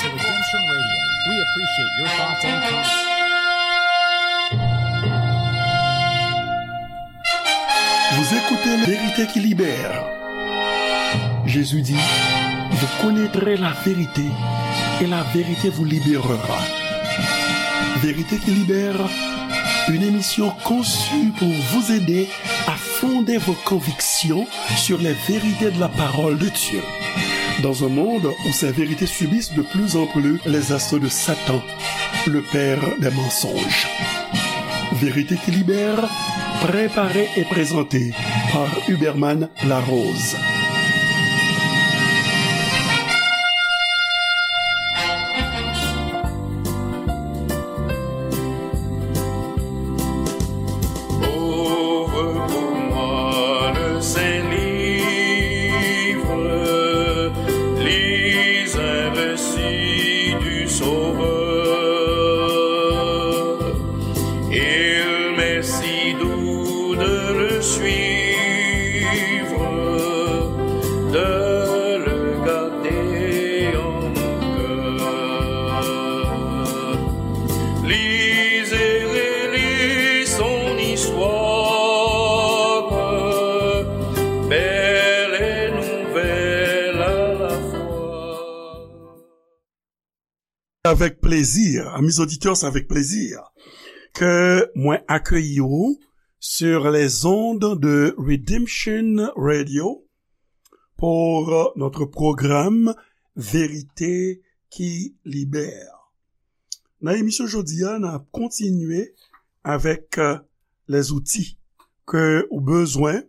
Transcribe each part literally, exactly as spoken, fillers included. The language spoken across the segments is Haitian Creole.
Redemption Radio. We appreciate your thoughts and comments. Vous écoutez La Vérité qui libère. Jésus dit, vous connaîtrez la vérité et la vérité vous libérera. Vérité qui libère, une émission conçue pour vous aider à fonder vos convictions sur les vérités de la parole de Dieu. Dans un monde où ces vérités subissent de plus en plus les assauts de Satan, le père des mensonges. Vérité qui libère, préparée et présentée par Huberman Larose. Ouvre pour moi le saint livre, lis un récit du Sauveur. Il m'est si doux de le suivre, de le garder en mon cœur. Lisez, relis son histoire, belle et nouvelle à la fois. Avec plaisir, amis auditeurs, c'est avec plaisir que mwen akeyi w sur les ondes de Redemption Radio pour notre programme Vérité qui libère. Nan emisyon jodi a, n ap kontinye avèk, euh, les outils ke ou bezwen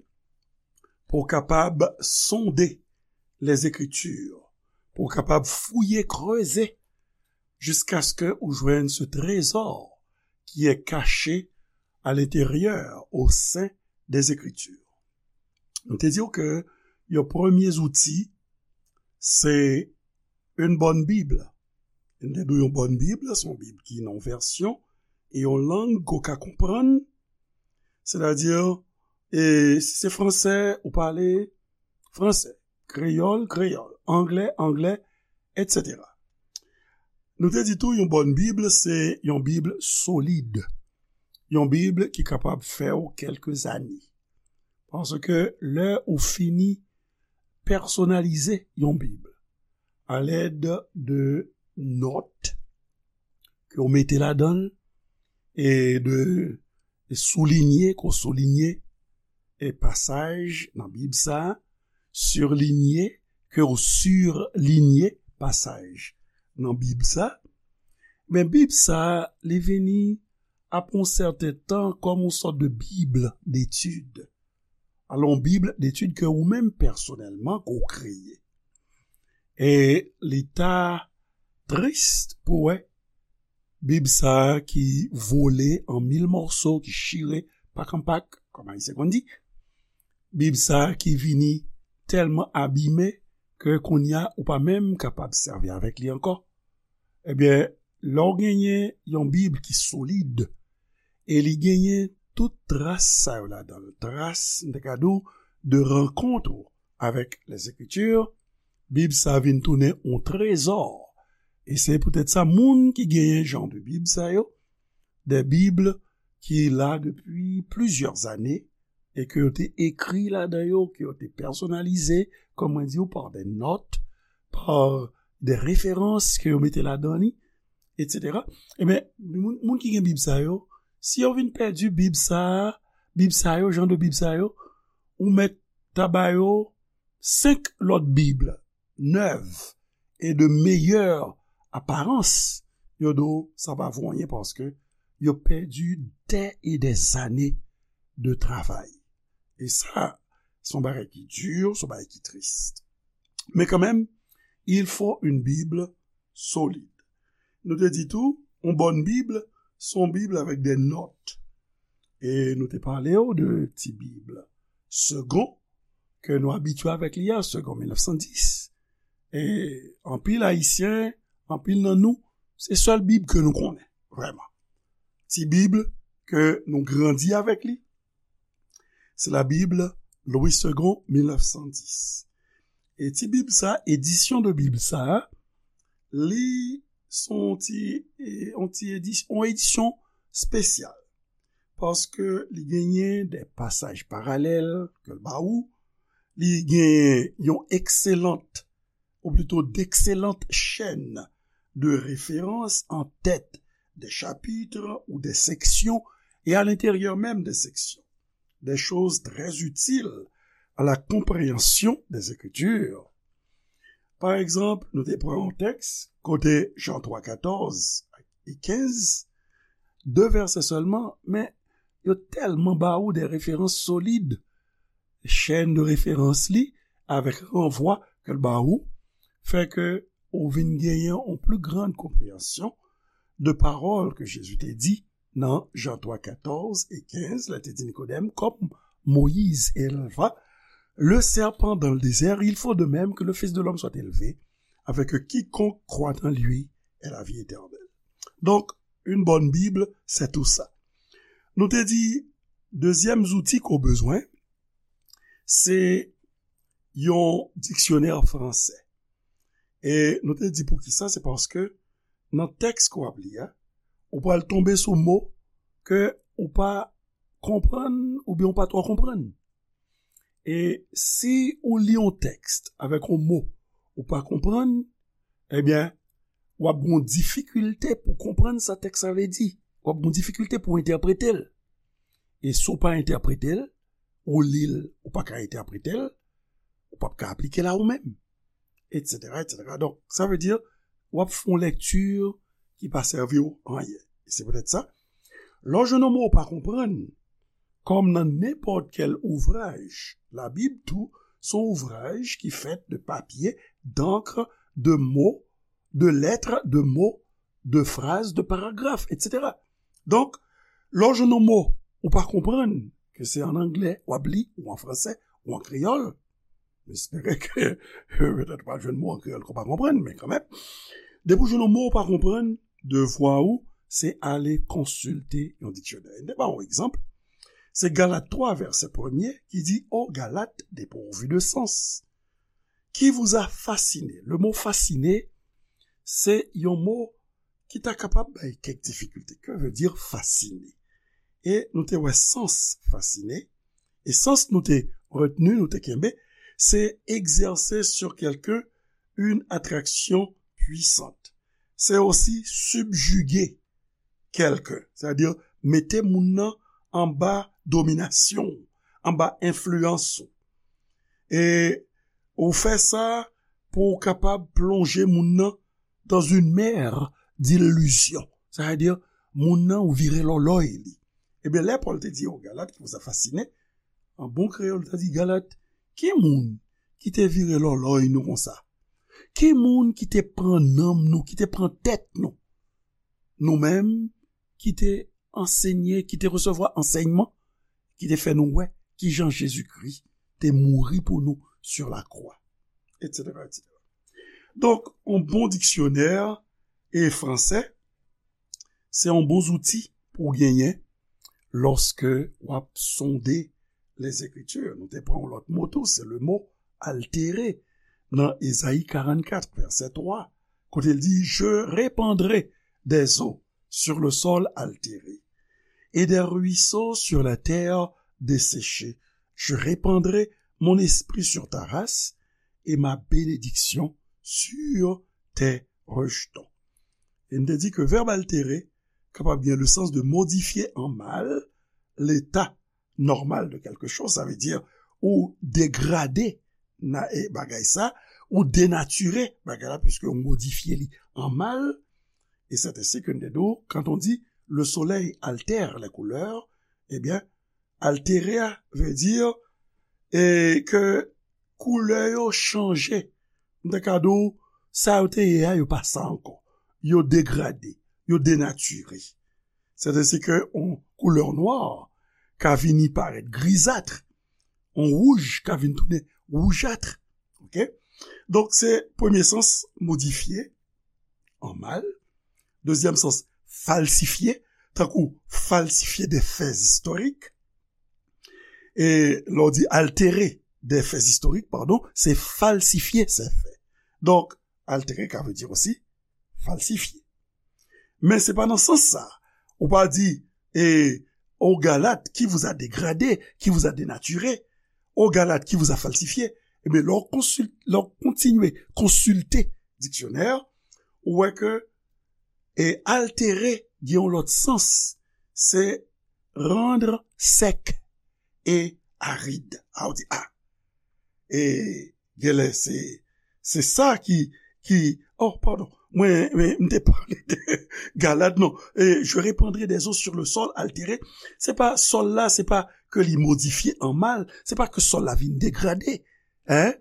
pou w kapab sonde les Écritures, pou w kapab fouye, kreze, jiskaske ou jwenn ce trésor qui est caché à l'intérieur, au sein des Écritures. Nou te di w ke yon premye zouti, se une bonne Bible. Nou te di w yon bòn Bib, se yon Bib ki nan yon vèsyon e yon lang ke w ka konprann. Sètadi, e si se fransè, ou pale fransè, kreyòl, kreyòl, anglè, anglè, etsetera. Nou te di tou, yon bòn Bib, se yon Bib solid. Yon Bib ki kapab fè w kèlke zane. Paske lè ou fini pèsonalize yon Bib alèd de nòt ke w mete ladan l e de soulinye, ke w soulinye e pasaj nan Bib sa a, surlinye, ke w surlinye pasaj nan Bib sa a, men Bib sa a, li vini apre yon sèten tan kòm yon sòt de Bib detid. Alò, yon Bib detid ke ou menm pèsonèlman ke w kreye. E li ta tris pou wè Bib sa a ki vole an mil mòso, ki chire pak an pak, kòm Ayisyen konn di. Bib sa a ki vini tèlman abime ke kounye a ou pa menm kapab sèvi avèk li ankò. Ebyen, lè w genyen yon Bib ki solid, e li genyen tout tras sa yo ladan l, tras, m te ka di w, de rankont ou avèk les Écritures, Bib sa vin tounen yon trezò. E se poutèt sa, moun ki genyen jan de Bib sa yo, de Bib ki la depi plizyè zane, e ke yo te ekri ladan yo, ke yo te pèsonalize, kòm mwen di w, pa de nòt, pa de referans ke yo mete ladan li, etsetera. Ebyen, moun, moun ki gen Bib sa yo, si yo vin pèdi Bib sa a, Bib sa yo, jan de Bib sa yo, ou mèt ta ba yo senk lòt Bib nèv e de meyè aparans, yo di w sa pa vo anyen paske yo pèdi dè e dè zane de travay. E sa, se yon bagay ki di, se yon bagay ki tris. Men kanmenm, il faut une Bible solide. Nou te di tou, yon bòn Bib, se yon Bib avèk de nòt. E nou te pale w de ti Bib Segond, ke nou abitye avèk li a, Segond mil nèf san dis. E anpil Ayisyen, anpil nan nou, se sèl Bib ke nou konnen, vrèman. Ti Bib ke nou grandi avèk li, se la Bible Louis Segond, mil nèf san dis. E ti Bib sa, edisyon de Bib sa, Li se yon ti, e, yon ti edis-, yon edisyon espesyal. Paske li genyen de pasaj paralèl ke l ba ou, li genyen yon excellente, ou plutôt d'excellentes chaînes de référence en tête des chapitres ou des sections et à l'intérieur même des sections, des choses très utiles à la compréhension des Écritures. Pa egzanp, nou te pran yon tèks kote Jan twa katòz e kenz, de vèsè sèlman, men yo tèlman ba ou de referans solid, chèn de referans li, avèk ranvwa ke l ba ou, fè ke ou vin genyen yon pli grann konpreyansyon de pawòl ke Jezi te di nan Jan twa katòz e kenz, lè te di Nikodèm, comme Moïse éleva le serpent dans le désert, il faut de même que le Fils de l'homme soit élevé, afin que quiconque croit en lui ait la vie éternelle. Donc, une bonne Bible, c'est tout ça. Nou te di, dezyèm zouti ke w bezwen, se yon diksyonè fransè. E nou te di poukisa, se paske nan tèks ke w ap li a, ou pral tonbe sou mo ke ou pa konprann oubyen ou pa twò konprann. E si ou li yon tèks avèk yon mo ou pa konprann, ebyen, w ap gen yon difikilte pou konprann sa tèks la vle di. W ap gen yon difikilte pou entèprete l. E si w pa entèprete l, ou li l, ou pa ka entèprete l, ou p ap ka aplike l a ou menm, et cetera, et cetera. Donk, sa vle di, w ap fè yon lèkti ki pa sèvi w anyen. E se poutèt sa, lè w jwenn yon mo w pa konprann, kòm nan nenpòt kèl ouvraj, Labib tou, se yon ouvraj ki fèt de papye, d'ankr, de mo, de lèt, de mo, de fraz, de paragraf, et cetera. Donk, lè w jwenn yon mo ou pa konprann, ke se an anglè w ap li, ou an fransè, ou an kreyòl, m espere ke petèt w pral jwenn mo an kreyòl ke w pa konprann, men kanmenm, depi w jwenn yon mo ou pa konprann, devwa ou, se ale konsilte yon diksyonè. M te ba w yon egzanp, se Galat twa, vèsè premye, ki di, ô Galates dépourvus de sens, qui vous a fasciné? Le mot fasciné, se yon mo ki ta kapab bay kèk difikilte. Que veut dire fasciné? E nou te wè sans fasciné. E sans nou te retni, nou te kenbe, se exercer sur quelqu'un une attraction puissante. C'est aussi subjuguer quelqu'un, c'est-à-dire mete moun nan anba dominasyon, anba enfliyans ou. E ou fè sa pou w kapab plonje moun nan dans une mer d'illusion. Sa vle di, moun nan ou vire lòlòy li. Ebyen, lè Pòl te di, ô Galat, qui vous a fasciné, an bon kreyòl, li ta di, Galat, ki moun ki te vire lòlòy nou konsa? Ki moun ki te pran nanm nou, ki te pran tèt nou? Nou menm ki te ansenye, ki te resevwa ansèyman, ki te fè nou wè kijan Jezikri te mouri pou nou sur la croix, et cetera, et cetera. Donk, yon bon diksyonè e fransè, se yon bon zouti pou w genyen lòske w ap sonde Lèzekritir. Nou te pran yon lòt mo tou, se le mo altere nan Ezayi karannkat, vèsè twa, kote l di, Je répandrai des eaux sur le sol altéré, et des ruisseaux sur la terre desséchée. Je répandrai mon esprit sur ta race et ma bénédiction sur tes rejetons. E m te di ke vèb altere kapab gen le sans de modifier en mal l'état normal de quelque chose, sa vle di ou degrade na, e, bagay sa, ou denatire bagay la, puisque ou modifye li an mal. E c'est ainsi que n te di, quand on dit le soleil altère les couleurs, ebyen, altere a vle di e ke koulè yo chanje. M ta ka di w, sa yo te ye a, yo pa sa ankò. Yo degrade, yo denatire. C'est ainsi que yon koulè nwa ka vini parèt grizat, yon wouj ka vin tounen woujat. Ok? Donk, se premye sans, modifye an mal. Dezyèm sans, falsifye, tankou falsifye de fè istorik. E lè w di altere de fè istorik, padon, se falsifye se fè. Donk, altere ka vle di osi falsifye. Men se pa nan sans sa. Ou pa di, e, au Galat qui vous a dégradé, qui vous a dénaturé, au Galat qui vous a falsifié. Ebyen, lè w konsil-, lè w kontinye konsilte diksyonè, ou wè ke, e, altéré gen yon lòt sans, se rendre sec et aride. A, ou di, a, e genlè se, se sa ki, ki, oh, padon, mwen, mwen, m te pale de Galad, non. E, je répandrai des eaux sur le sol altéré. Se pa sòl la, se pa ke li modifye an mal, se pa ke sòl la vin degrade, en,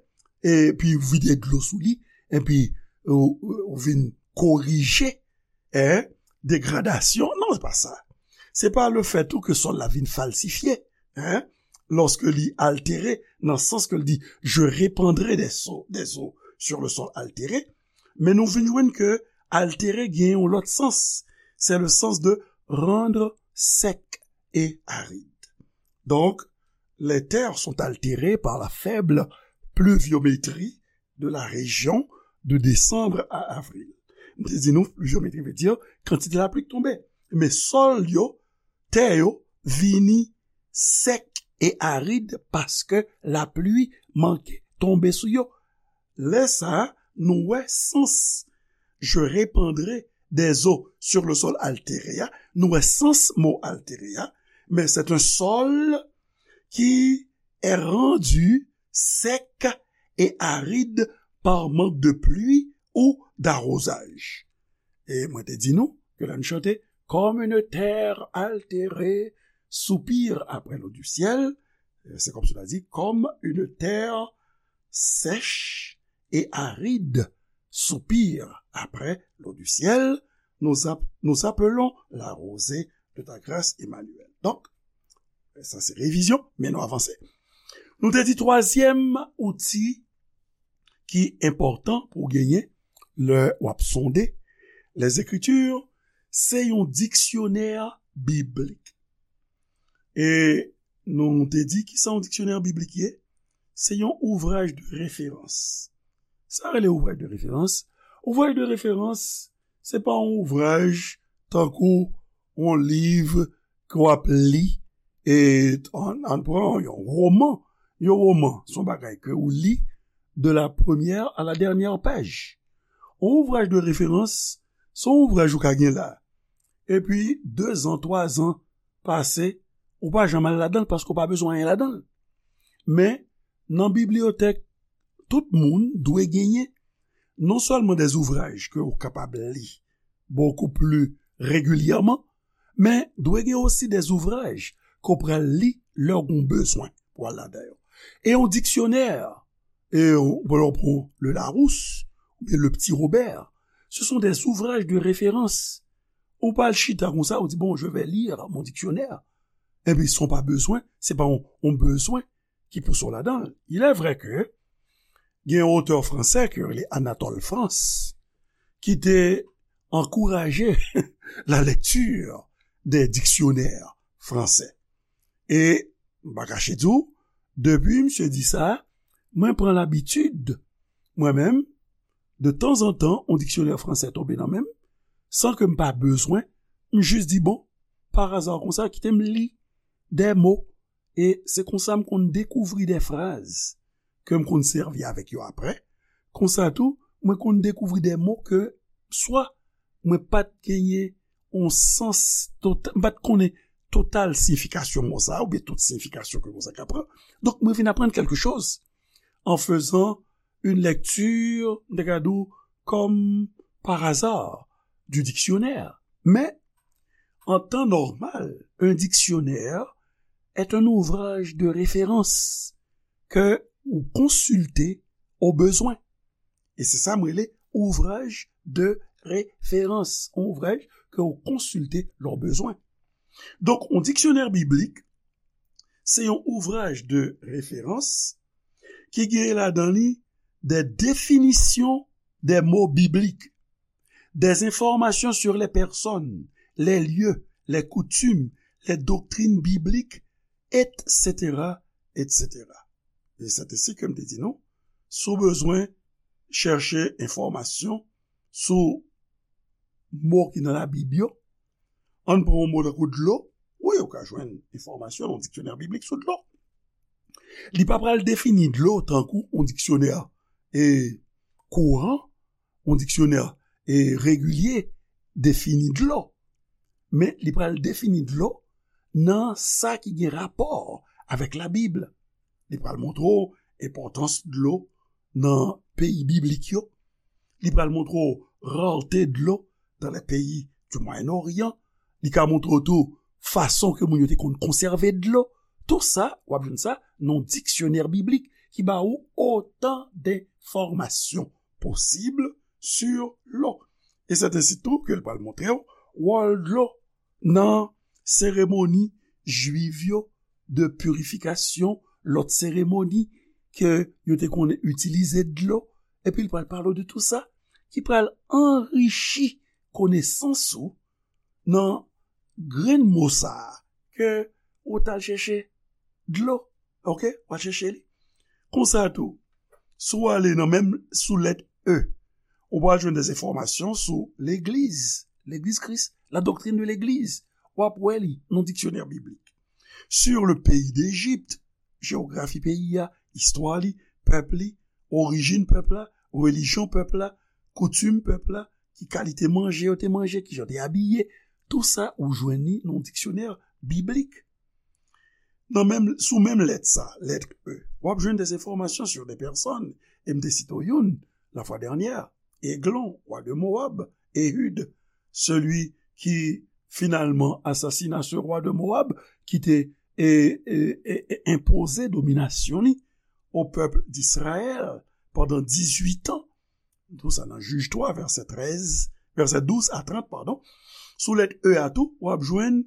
epi vide dlo sou li, epi ou, ou vin korije, en, degradasyon. Non, se pa sa. Se pa le fè tou ke sòl la vin falsifye, en, lòske li altere, nan sans ke l di, je répandrai des eaux, des eaux sur le sol altéré. Men nou vin jwenn ke altere gen yon lòt sans. C'est le sens de rendre sec et aride. Donc, les terres sont altérées par la faible pluviométrie de la région de décembre à avril. M te di nou, pluviométrie veut dire kantite lapli k tonbe. Men sòl yo, tè yo, vini sèk e arid paske lapli manke tonbe sou yo. Lè sa a, nou wè sans je répandrai des eaux sur le sol altéré a, nou wè sans mo altéré a, men c'est un sol qui est rendu sec et aride par manque de pluie ou d'arrosage. E mwen te di nou ke lè n chante, comme une terre altérée soupire après l'eau du ciel, se kòmsi w ta di, comme une terre sèche et aride soupire après l'eau du ciel, nous, ap- nous appelons la rosée de ta grâce, Emmanuel. Donk, sa se revizyon, men nou avanse. Nou te di twazyèm outi ki enpòtan pou w genyen lè w ap sonde Lèzekritir, se yon diksyonè biblik. E nou te di ki sa yon diksyonè biblik ye? Se yon ouvraj de referans. Sa rele ouvraj de referans? Ouvraj de referans, se pa yon ouvraj tankou yon liv ke w ap li, e ann, ann pran yon woman. Yon woman, se yon bagay ke ou li de la première à la dernière page. Yon ouvraj de referans, se yon ouvraj ou ka gen la. Epi, dezan, twazan pase, ou pa janm al ladan l paske ou pa bezwen anyen ladan l. Men, nan bibliyotèk, tout moun dwe genyen non sèlman des ouvrages ke ou kapab li beaucoup plus régulièrement, men dwe gen osi des ouvrages ke w pral li lè w gen bezwen pou al ladan yo. E yon diksyonè, e w pran Le Larousse oubyen Le Petit Robert, ce sont des ouvrages de référence. Ou pa al chita konsa, ou di, bon, je vais lire mon dictionnaire. Epi, si w pa bezwen, se pa yon, yon bezwen ki pouse w ladan l. Il est vrai que gen yon otè fransè ki rele Anatole France, ki te ankouraje la lecture des dictionnaires français. E m pa kache di w, depi misye di sa, mwen pran labitid, mwen menm, de tanzantan, yon diksyonè fransè tonbe nan men m, san ke m pa bezwen, m jis di, bon, pa aza konsa, kite m li de mo. E se konsa m konn dekouvri de fraz ke m konn sèvi avèk yo apre. Konsa tou, mwen konn dekouvri de mo ke swa mwen pa t genyen yon sans tota-, m pa t konnen total siyifikasyon mo sa a, oubyen tout siyifikasyon ke mo sa ka pran. Donk, mwen vin aprann kèlke choz en faisant une lecture, m te ka di w, comme par hasard, du dictionnaire. Mais, en temps normal, un dictionnaire est un ouvrage de référence que ou konsilte au besoin. E se sa m rele ouvraj de referans, yon ouvraj ke ou konsilte lè w bezwen. Donk, yon diksyonè biblik, se yon ouvraj de referans ki gen ladan li des définitions des mots bibliques, des informations sur les personnes, les lieux, les coutumes, les doctrines bibliques, et cetera, et cetera. E se te si ke m te di nou, si w bezwen chèche enfòmasyon sou mo ki nan Labib yo. Ann pran yon mo tankou dlo. Wi, ou ka jwenn enfòmasyon nan yon diksyonè biblik sou dlo. Li pa pral defini dlo tankou yon diksyonè e kouran, yon diksyonè e regilye defini dlo. Men li pral defini dlo nan sa ki gen rapò avèk Labib. Li pral montre w enpòtans dlo nan peyi biblik yo. Li pral montre w rarte dlo dans les pays du Moyen-Orient. Li ka montre w tou fason ke moun yo te konn konsève dlo. Tou sa, w ap jwenn sa nan yon diksyonè biblik ki ba ou otan denfòmasyon posib sur l'eau. E c'est ainsi tou ke l pral montre w wòl dlo nan seremoni jwiv yo de pirifikasyon, lòt seremoni ke yo te konn itilize dlo, epi l pral pale w de tou sa, ki pral anrichi konesans ou nan grenn mo sa a ke ou t al chèche dlo, oke? W al chèche li. Konsa tou, si w ale nan menm sou lèt E, ou pral jwenn des enfòmasyon sou legliz, legliz Kris, la doctrine de legliz. W ap wè li nan diksyonè biblik. Sur le pays d'Égypte, jewografi peyi a, istwa li, pèp li, orijin pèp la, relijyon pèp la, koutim pèp la, ki kalite manje yo te manje, ki jan te abiye, tou sa ou jwenn li nan yon diksyonè biblik. Nan menm, sou menm lèt sa, lèt E, w ap jwenn des enfòmasyon sur des personnes, e m te site w youn, la fwa dènyè, Eglon, wa de Moab, Ehud, celui qui finalement assassina ce roi de Moab, ki te e, e, e, e, enpoze dominasyon li o pèp d'Israël pandan dizuit an. Tou sa nan Jij twa, vèsè trèz, vèsè douz a trant, padon. Sou lèt E a tou, w ap jwenn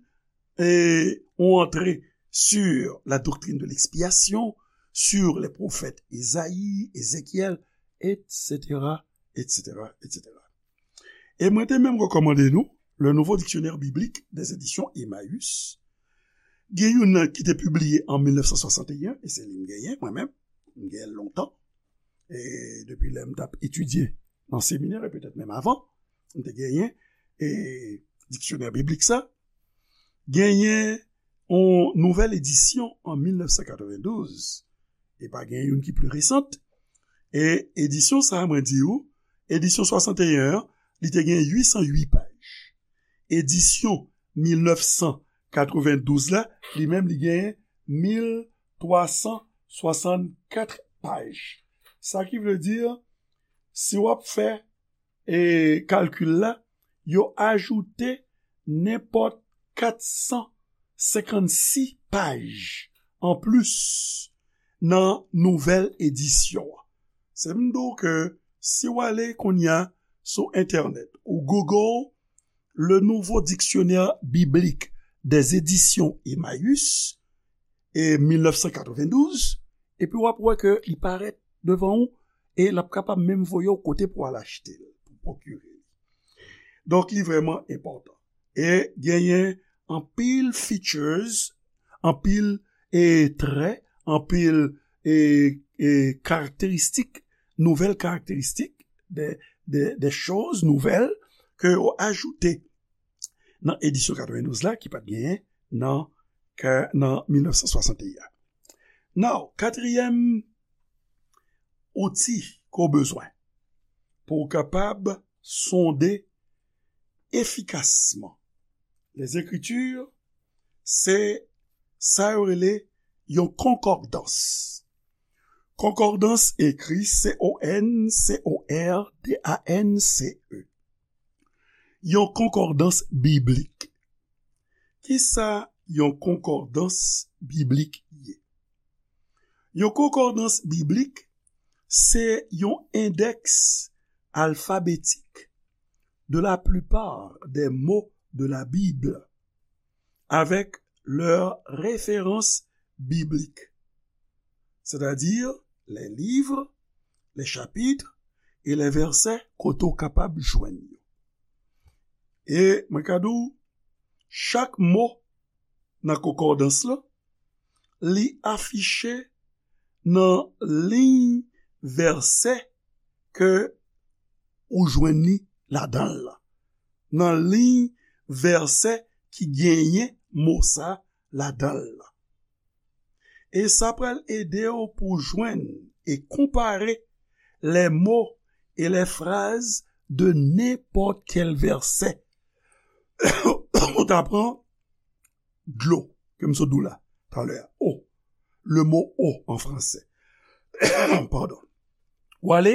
e, on antre sur la doctrine de l'expiation, sur les prophètes Esaïe, Ézéchiel, et cetera, et cetera, et cetera. E mwen te menm rekòmande nou Le Nouveau Dictionnaire Biblique des Éditions Emmaüs. Gen youn nan ki te pibliye an mil nèf san swasanteyen, e se li m genyen, mwen menm. M genyen l lontan. E depi lè m t ap etidye nan seminè, e petèt menm avan, m te genyen e diksyonè biblik sa. Genyen yon nouvèl edisyon an mil nèf san katrevendouz. E pa gen youn ki pli resant. E edisyon sa a, mwen di ou, edisyon swasanteyen an, li te gen uit san uit paj. Edisyon mil nèf san katrevendouz la, li menm, li gen mil twa san swasannkat paj. Sa ki vle di, si w ap fè e kalkil la, yo ajoute nenpòt kat san senkannsis paj anplis nan nouvèl edisyon an. Se m di w ke si w ale kounye a sou entènèt, ou Google Le Nouveau Dictionnaire Biblique des Éditions Emmaüs, e mil nèf san katrevendouz, epi w ap wè ke li parèt devan ou, e l ap kapab menm voye w kote pou w al achte l, pou pwokire li. Donk, li vrèman enpòtan. E genyen anpil features, anpil e trè, anpil e, e karakteristik, nouvèl karakteristik, de, de, de choz nouvèl ke yo ajoute nan edisyon katrevendouz la ki pa t genyen nan, ka, nan mil nèf san swasanteyen. Now, katriyèm outi ke w bezwen pou w kapab sonde efikasman Lèzekriti, se sa yo rele yon konkòdans. Konkòdans ekri C O N C O R D A N C E. Yon konkòdans biblik. Kisa yon konkòdans biblik ye? Yon konkòdans biblik se yon endèks alfabetik de la plupart des mots de la Bible avec leurs références bibliques, c'est-à-dire les livres, les chapitres et les versets kote w kapab jwenn yo. E mwen ka di w, chak mo nan konkòdans lan, li afiche nan liy vèsè ke ou jwenn li ladan l lan. nan liy vèsè ki genyen mo sa ladan l lan. E sa pral ede w pou jwenn e konpare les mots et les phrases de n'importe quel verset. Ou ta pran dlo, ke m sot di w la talè a. Eau. Le mot eau en français. Pardon. W ale,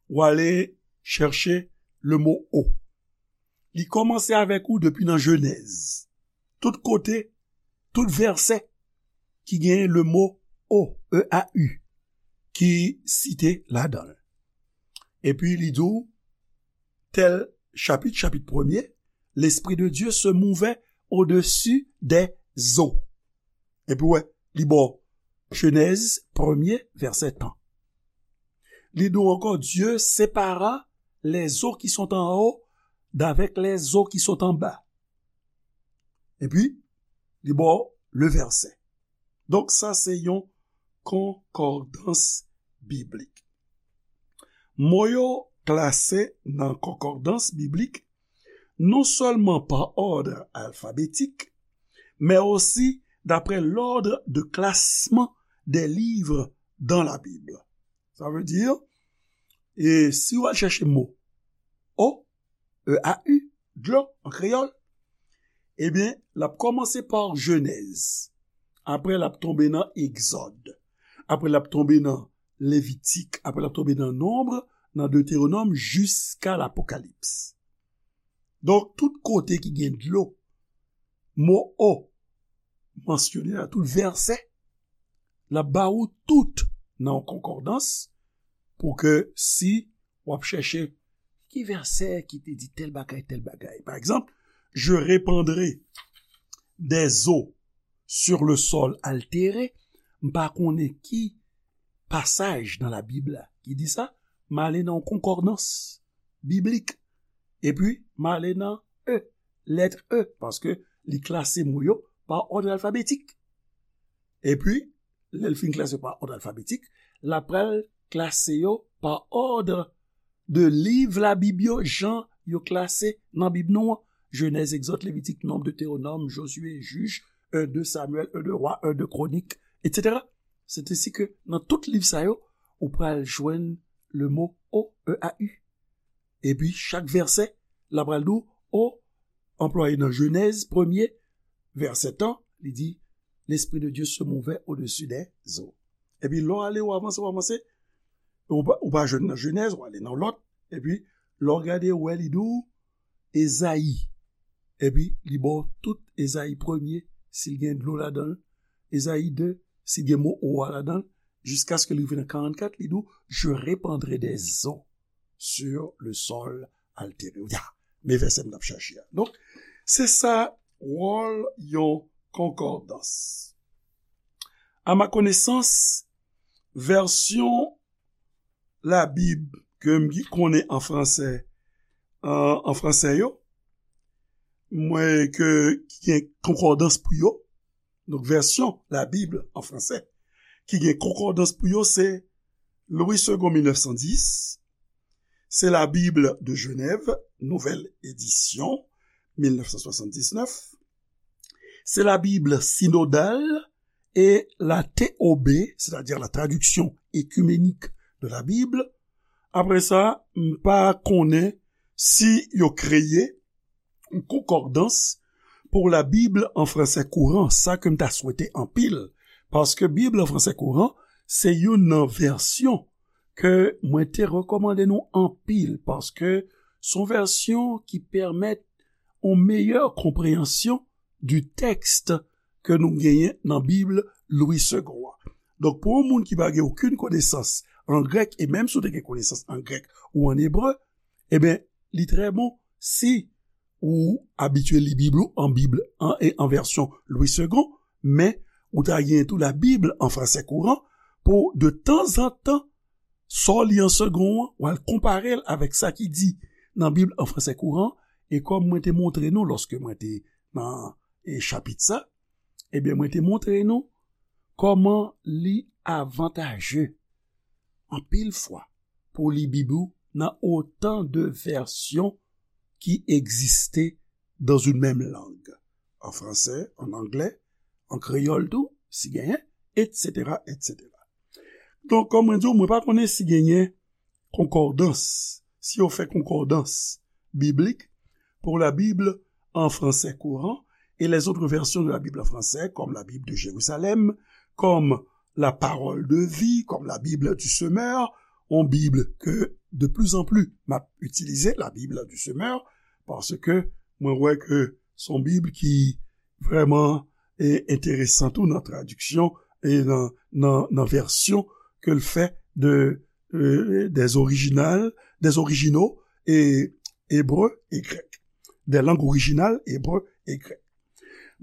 w ale chèche le mot eau. Li kòmanse avèk ou depi nan Jenèz. Tout kote, tout vèsè ki gen le mo eau, E A U, ki site ladan l. Epi li di w, tel chapit, chapit premye, l'Esprit de Dieu se mouvait au-dessus des eaux. Epi wè, li ba w Jenèz premye, vèsè tan. Li di w ankò, Dieu sépara les eaux qui sont en haut d'avec les eaux qui sont en bas. Epi, li ba w le vèsè. Donk, sa se yon konkòdans biblik. Mo yo klase nan konkòdans biblik non sèlman pa òd alfabetik, men osi d'après l'ordre de classement des livres dans la Bible. Sa vle di, e si w al chèche mo eau, E A U, dlo an kreyòl, ebyen, l ap kòmanse pa Jenèz. Apre, l ap tonbe nan Egzòd. Apre, l ap tonbe nan Levitik. Apre, l ap tonbe nan Nonb, nan Detewonòm, jiska Lapokalips. Donk, tout kote ki gen dlo, mo eau mansyone nan tout vèsè, l ap ba ou tout nan yon konkòdans pou ke si w ap chèche ki vèsè ki te di tèl bagay, tèl bagay. Pa egzanp, je répandrai des eaux sur le sol altéré, m pa konnen ki pasaj nan Labib la ki di sa, m ale nan yon konkòdans biblik. Epi, m ale nan E, lèt E, paske li klase mo yo pa òd alfabetik. Epi, lè l fin klase yo pa òd alfabetik, l ap pral klase yo pa òd de liv Labib yo, jan yo klase nan Bib nou an. Jenèz, Egzòd, Levitik, Nonb, Detewonòm, Jozye, Jij, en, de Samyèl, en, de Wa, en, de Kwonik, etsetera. Se te si ke nan tout liv sa yo, ou pral jwenn le mo eau, E A U. Epi chak vèsè, l ap pral di w, eau, anplwaye nan Jenèz, premye, vèsè tan, li di, l'Esprit de Dieu se mouvait au-dessus des eaux. Epi lè w ale, w avanse, w avanse, ou pa, ou pa jwenn nan Jenèz, w ale nan lòt, epi lè w gade, w wè li di w, Ezayi. Epi li ba w tout Ezayi premye, si l gen dlo ladan l, Ezayi de, si l gen mo eau a ladan l, jiskaske li rive nan karannkat, li di w, je répandrai des eaux sur le sol altéré. Ya, men vèsè m t ap chache a. Donk, se sa wòl yon konkòdans. A ma konesans, vèsyon Labib ke m konnen an fransè, an, an fransè yo, mwen ke, ki gen konkòdans pou yo, donk vèsyon Labib an fransè, ki gen konkòdans pou yo, se Louis Segond mil nèf san dis, se La Bible de Genève, nouvelle édition, mil nèf san swasanndiznèf, se La Bible synodale et la T O B, c'est-à-dire la traduction écuménique de la Bible. Apre sa, m pa konnen si yo kreye yon konkòdans pou Labib an fransè kouran, sa ke m ta swete anpil, paske Bib an fransè kouran, se youn nan vèsyon ke mwen te rekòmande nou anpil, paske se yon vèsyon ki pèmèt yon meyè konpreyansyon du texte ke nou genyen nan Bib Louis Segond an. Donk, pou yon moun ki pa gen okenn konesans an grèk, e menm si w te gen konesans an grèk ou an ebre, ebyen, li trè bon si ou abitye li Bib ou an Bib an, e an vèsyon Louis Segond, men ou ta gen tou Labib an fransè kouran pou de tanzantan, sa w li an segond an, w al konpare l avèk sa ki di nan Bib an fransè kouran, e kòm mwen te montre nou lòske mwen te nan, e, chapit sa, ebyen, mwen te montre nou kòman li avantaje anpil fwa pou li Bib ou nan otan de vèsyon qui existaient dans une même langue. An fransè, an anglè, an kreyòl tou, si genyen, et cetera, et cetera. Donk, kòm mwen di w, mwen pa konnen si genyen konkòdans, si yo fè konkòdans biblik pour la Bible en français courant et les autres versions de la Bible en français, comme la Bible de Jérusalem, comme la Parole de vie, comme la Bible du Semeur, yon Bib ke de plus en plus m ap itilize, la Bible du Semeur, paske mwen wè ke se yon Bib ki vrèman e enteresan tou nan tradiksyon e nan, nan, nan vèsyon ke l fè de, euh, des originales, des originaux e ebre e grèk. Des langues originales, ebre e grèk.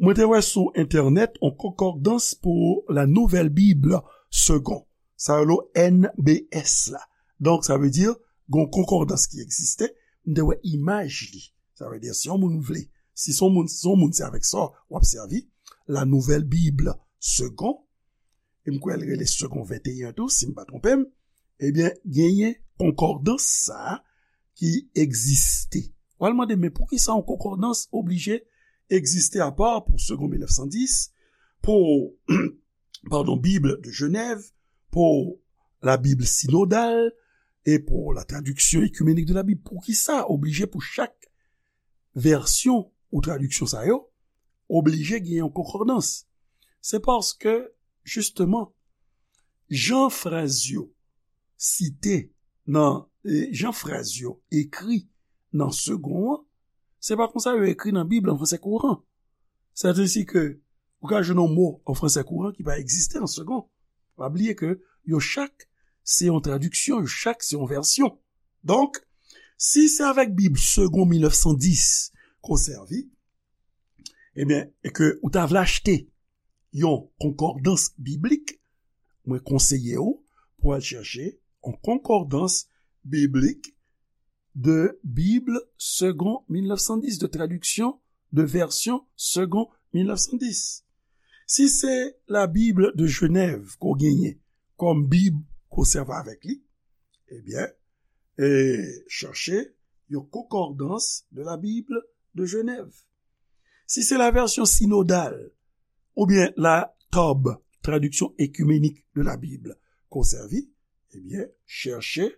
Mwen te wè sou entènèt yon konkòdans pou la Nouvelle Bible Segond. Sa rele N B S la. Donk, sa vle di, gon konkòdans ki egziste. M te wè imaj li. Sa vle di, si yon moun vle, si son moun, si son moun se avèk sa w ap sèvi, la Nouvelle Bible Segond, e m kwè l rele Segond venteyen tou, si m pa twonpe m, ebyen, genyen konkòdans sa a ki egziste. W al mande, men poukisa yon konkòdans oblije egziste apa pou Segond mil nèf san dis, pou, padon, Bible de Genève, pou la Bible synodale, e pou la traduction écuménique de la Bible? Poukisa oblije pou chak vèsyon ou tradiksyon sa yo, oblije gen yon konkòdans? Se paske, jisteman, jan frèz yo site nan, e, jan frèz yo ekri nan Segond an, se pa konsa yo ekri nan Bib an fransè kouran. Sètadi ke ou ka jwenn yon mo an fransè kouran ki pa egziste nan Segond. Pa bliye ke yo chak se yon tradiksyon, yo chak se yon vèsyon. Donk, si se avèk Bib Segond mil nèf san dis ke w sèvi, ebyen, e ke ou ta vle achte yon konkòdans biblik, mwen konseye w pou al chèche yon konkòdans biblik de Bible Segond mil nèf san dis, de traduction, de version Segond mil nèf san dis. Si se la Bible de Genève ke w genyen kòm Bib ke w sèvi avèk li, ebyen, e, chèche yon konkòdans de la Bible de Genève. Si se la version synodale, oubyen la TOB, Traduction écuménique de la Bible, ke w sèvi, ebyen, chèche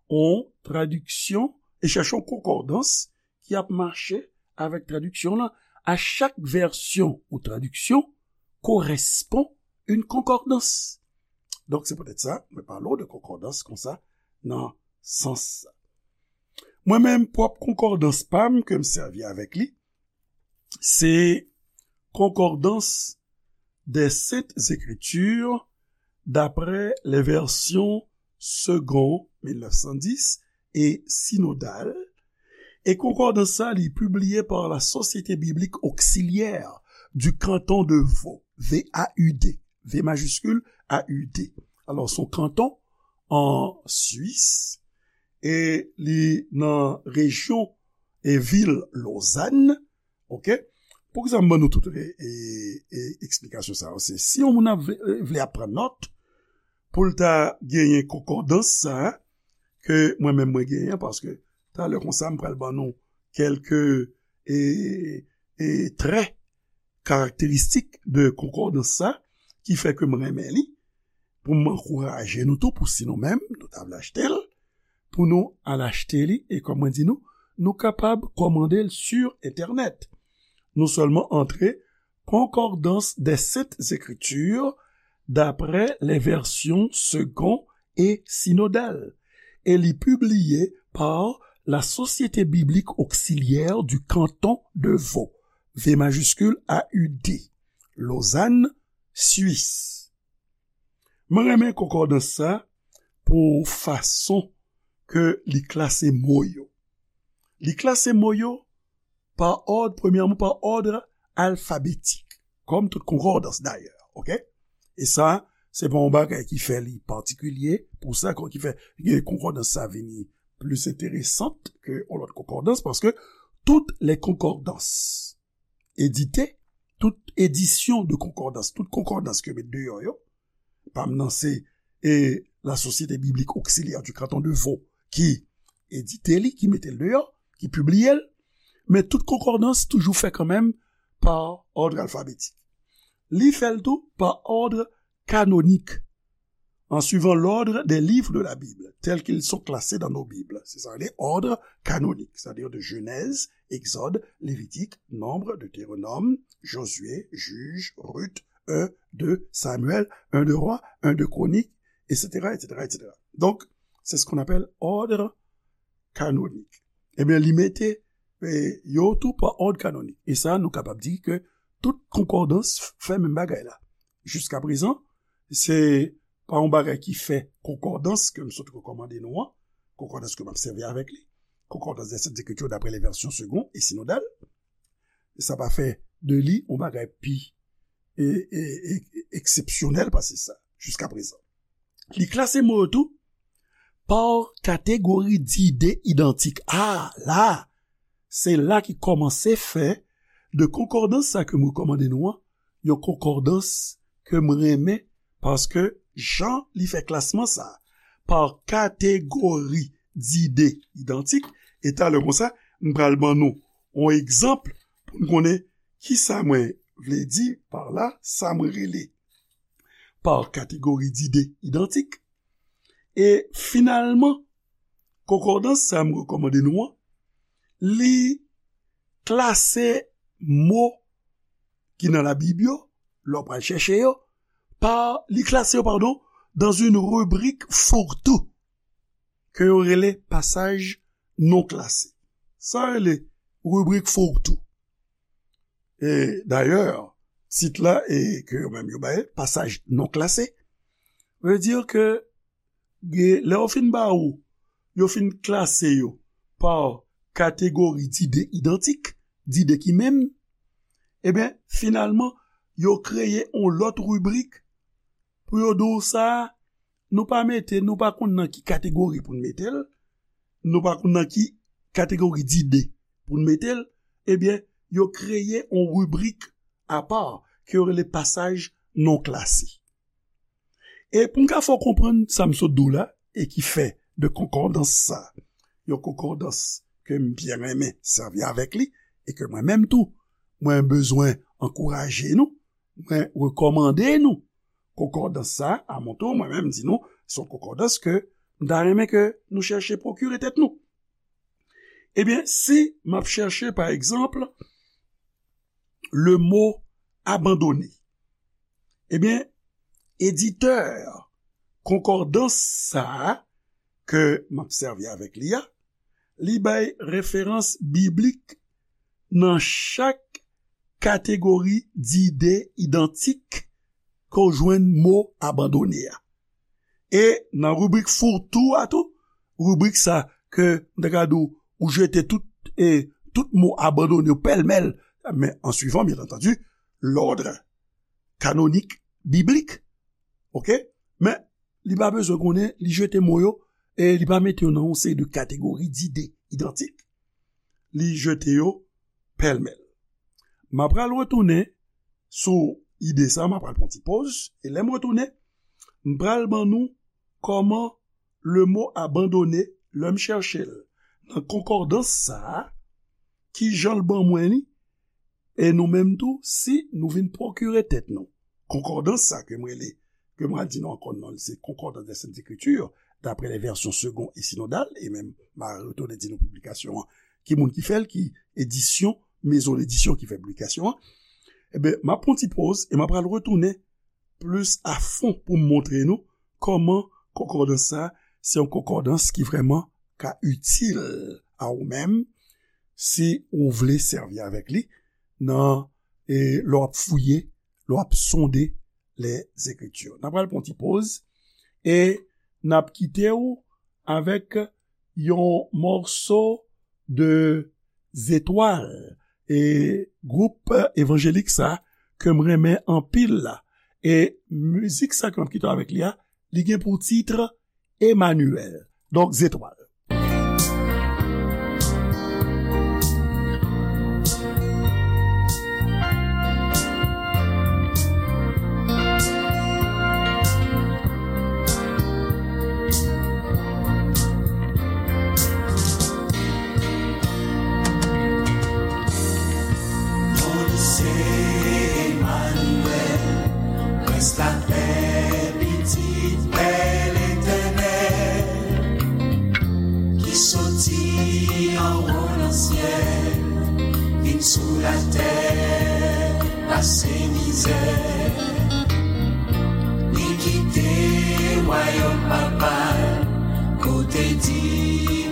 yon tradiksyon e chèche yon konkòdans ki ap mache avèk tradiksyon lan. A chak vèsyon ou tradiksyon korespon yon konkòdans. Donk, se poutèt sa, mwen pale w de konkòdans konsa nan sans sa. Mwen menm, pwòp konkòdans pa m ke m sèvi avèk li, se Concordance des Saintes Écritures d'après les versions Segond mil nèf san dis e Synodale. E konkòdans sa, li pibliye pa la Société Biblique Auxiliaire du Canton de Vaud, V A U D, V majiskil, A U D. Alò, se yon kanton an Swis, e li nan rejyon e vil Lozàn, oke? Poukisa m ban nou tout e, e, e, eksplikasyon sa yo? Se si yon moun ap vle, vle ap pran nòt, pou l ta genyen konkòdans sa a, ke mwen menm mwen genyen, paske talè konsa m pral ban nou kèlke, e, e, trè karakteristik de konkòdans sa, ki fè ke m renmen li, pou m ankouraje nou tou, pou si nou menm, nou ta vle achte l, pou nou al achte li, e kòm mwen di nou, nou kapab kòmande l sur entènèt. Nou sèlman antre Concordance des Saintes Écritures d'après les versions Segond et Synodale, e li pibliye pa la Société Biblique Auxiliaire du Canton de Vaud, V majiskil A U D, Lozàn, Swis. Mwen renmen konkòdans sa pou fason ke li klase mo yo. Li klase mo yo pa òd, premyèman, pa òd alfabetik, kòm tout konkòdans dayè, oke? E sa, se pa yon bagay ki fè li patikilye, pou sa, ki fè konkòdans sa vini plis enteresan ke yon lòt konkòdans, paske toutes les concordances éditées, tout edisyon de konkòdans, tout konkòdans ke met deyò yo, pa m nan se, e, la Société Biblique Auxiliaire du Canton de Vaud ki edite li, ki mete l deyò, ki pibliye l, Men tout konkòdans toujou fè kanmenm pa òd alfabetik. Li fè l tou pa òd kanonik, en suivant l'ordre des livres de la Bible, tels qu'ils sont classés dans nos Bibles. C'est ça, les ordres canoniques, c'est-à-dire de Genèse, Exode, Lévitique, Nombre, Deutéronome, Josué, Juge, Ruth, un, deux Samuel, un de Rois, un de Chroniques, et cetera, et cetera, et cetera. Donc, c'est ce qu'on appelle ordre canonique. Ebyen, li mete eh, yo tou pa òd kanonik. E sa, nou kapab di ke tout konkòdans fè menm bagay la. Jiska prezan, se pa yon bagay ki fè konkòdans ke m sot rekòmande nou an, konkòdans ke m ap sèvi avèk li, konkòdans des Saintes Écritures d'après les versions secondes et synodales, sa pa fè de li yon bagay pi e, e, e, eksepsyonèl pase sa, jiska prezan. Li klase mo yo tou pa kategori dide idantik. A, la, se la ki kòmanse fè de konkòdans sa ke m rekòmande nou an, yon konkòdans ke m renmen, paske jan li fè klasman sa, pa kategori dide idantik, e talè konsa, m pral ban nou yon egzanp pou n konnen kisa mwen vle di pa la, sa mwen rele pa kategori dide idantik. E finalman, konkòdans sa m rekòmande nou an, li klase mo ki nan Labib yo, lè w pral chèche yo, pa, li klase yo, padon, dans une rubrique fourre-tout, ke yo rele pasaj non klase. Sa rele ribrik fourre-tout. E dayè, tit la, e ke yo menm yo bay, pasaj non klase, vle di ke, lè yo fin ba ou, yo fin klase yo pa kategori dide idantik, dide ki menm, ebyen, finalman, yo kreye yon lòt ribrik pou yo di w sa, nou pa mete, nou pa konn nan ki kategori pou n mete l, nou pa konn nan ki kategori dide pou n mete l, ebyen, yo kreye yon ribrik apa ke yo rele pasaj non klase. E pou m ka fè w konprann sa m sot di w la, e ki fè de konkòdans sa, yon konkòdans ke m byen renmen sèvi avèk li, e ke mwen menm tou, mwen bezwen ankouraje nou, mwen rekòmande nou konkòdans sa, a mon tour, mwen menm di nou, se yon konkòdans ke m ta renmen ke nou chèche pwokire tèt nou. Ebyen, si m ap chèche, pa egzanp, le mot abandonné, ebyen, editè konkòdans sa a ke m ap sèvi avèk li a, li bay referans biblik nan chak kategori dide idantik ke w jwenn mo abandone a. E nan ribrik fourre-tout a tou, ribrik sa ke m ta ka di w, ou jete tout, e, tout mo abandone yo pèlmèl, men an suivant, bien entendu, l'ordre canonique biblique, oke? Men, li pa bezwen konnen, li jete mo yo, e li pa mete yo nan yon seri de kategori dide idantik. Li jete yo pèlmèl. M ap pral retounen sou ide sa, m ap pral pran ti poz, e lè m retounen, m pral ban nou kòman le mot abandonné, lè m chèche l nan konkòdans sa a, ki jan l ban mwen li, e nou menm tou, si nou vin pwokire tèt nou konkòdans sa ke m rele, ke m pral di nou ankò non l, se Concordance des Saintes Écritures, d'après les versions secondes et synodales, e menm m a retounen di nou piblikasyon an, ki moun ki fè l, ki edisyon, mezon ledisyon ki fè piblikasyon an, ebyen, m ap pran ti poz e m ap pral retounen plis a fon pou m montre nou kòman konkòdans sa, se yon konkòdans ki vrèman ka itil a ou menm, si ou vle sèvi avèk li nan, e, lè w ap fouye, lè w ap sonde les Écritures. N ap pral pran ti poz e n ap kite w avèk yon mòso de Zetwal, e gwoup evanjelik sa ke m renmen anpil la. E mizik sa ke m ap kite w avèk li a, li gen pou tit Emmanuel. Donk, Zetwal. Se Emmanuel, prens lapè, pitit pè Letènèl, ki soti anwo nan syèl, vin sou latè, pase mizè. Li kite wayòm Papa l, kote di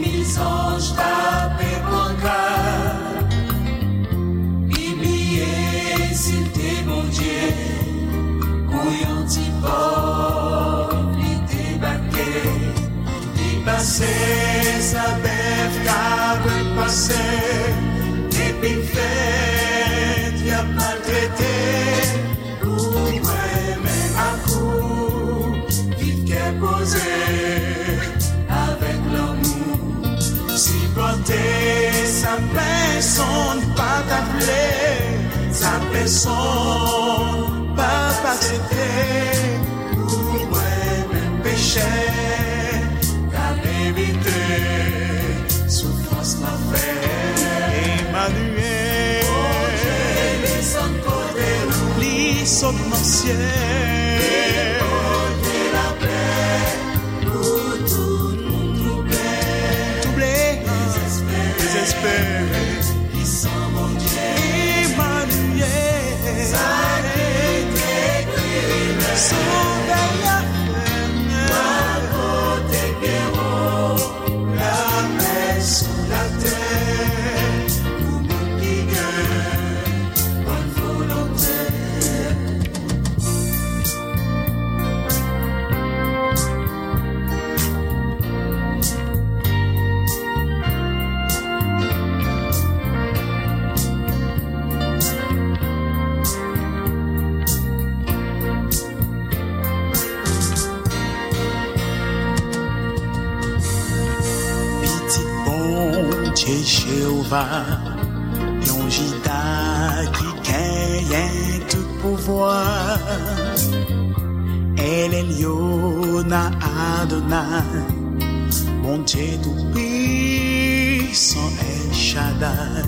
mil zanj t ap pran ka. Li bliye si l te Bondye, kou yon ti pòv li debake. Li pase sa bèf, kabrit pase, depi l fèt, y ap maltrete. Pou mwen menm ak ou, viv kè poze, avèk lanmou. Sipòte sa pèsonn pa ta vle, sa pèsonn pa t aksepte. Pou mwen menm pechè, k ap evite soufrans lanfè. Emmanuel. Bondye desann kote nou. Li sot nan syèl. Li pote lapè pou tout moun twouble. Twouble. Dezespere. Dezespere. Ki san Bondye. Emmanuel. Sa ki te ekri lè. Sovè a fè. Wa pote byen wo. Lapè sou latè pou moun ki gen bòn volonte. Pitit Bondye Jewova, yon Jida ki genyen tout pouvwa. El Elyon Adonay, Bondye Toupisan El Shaddai.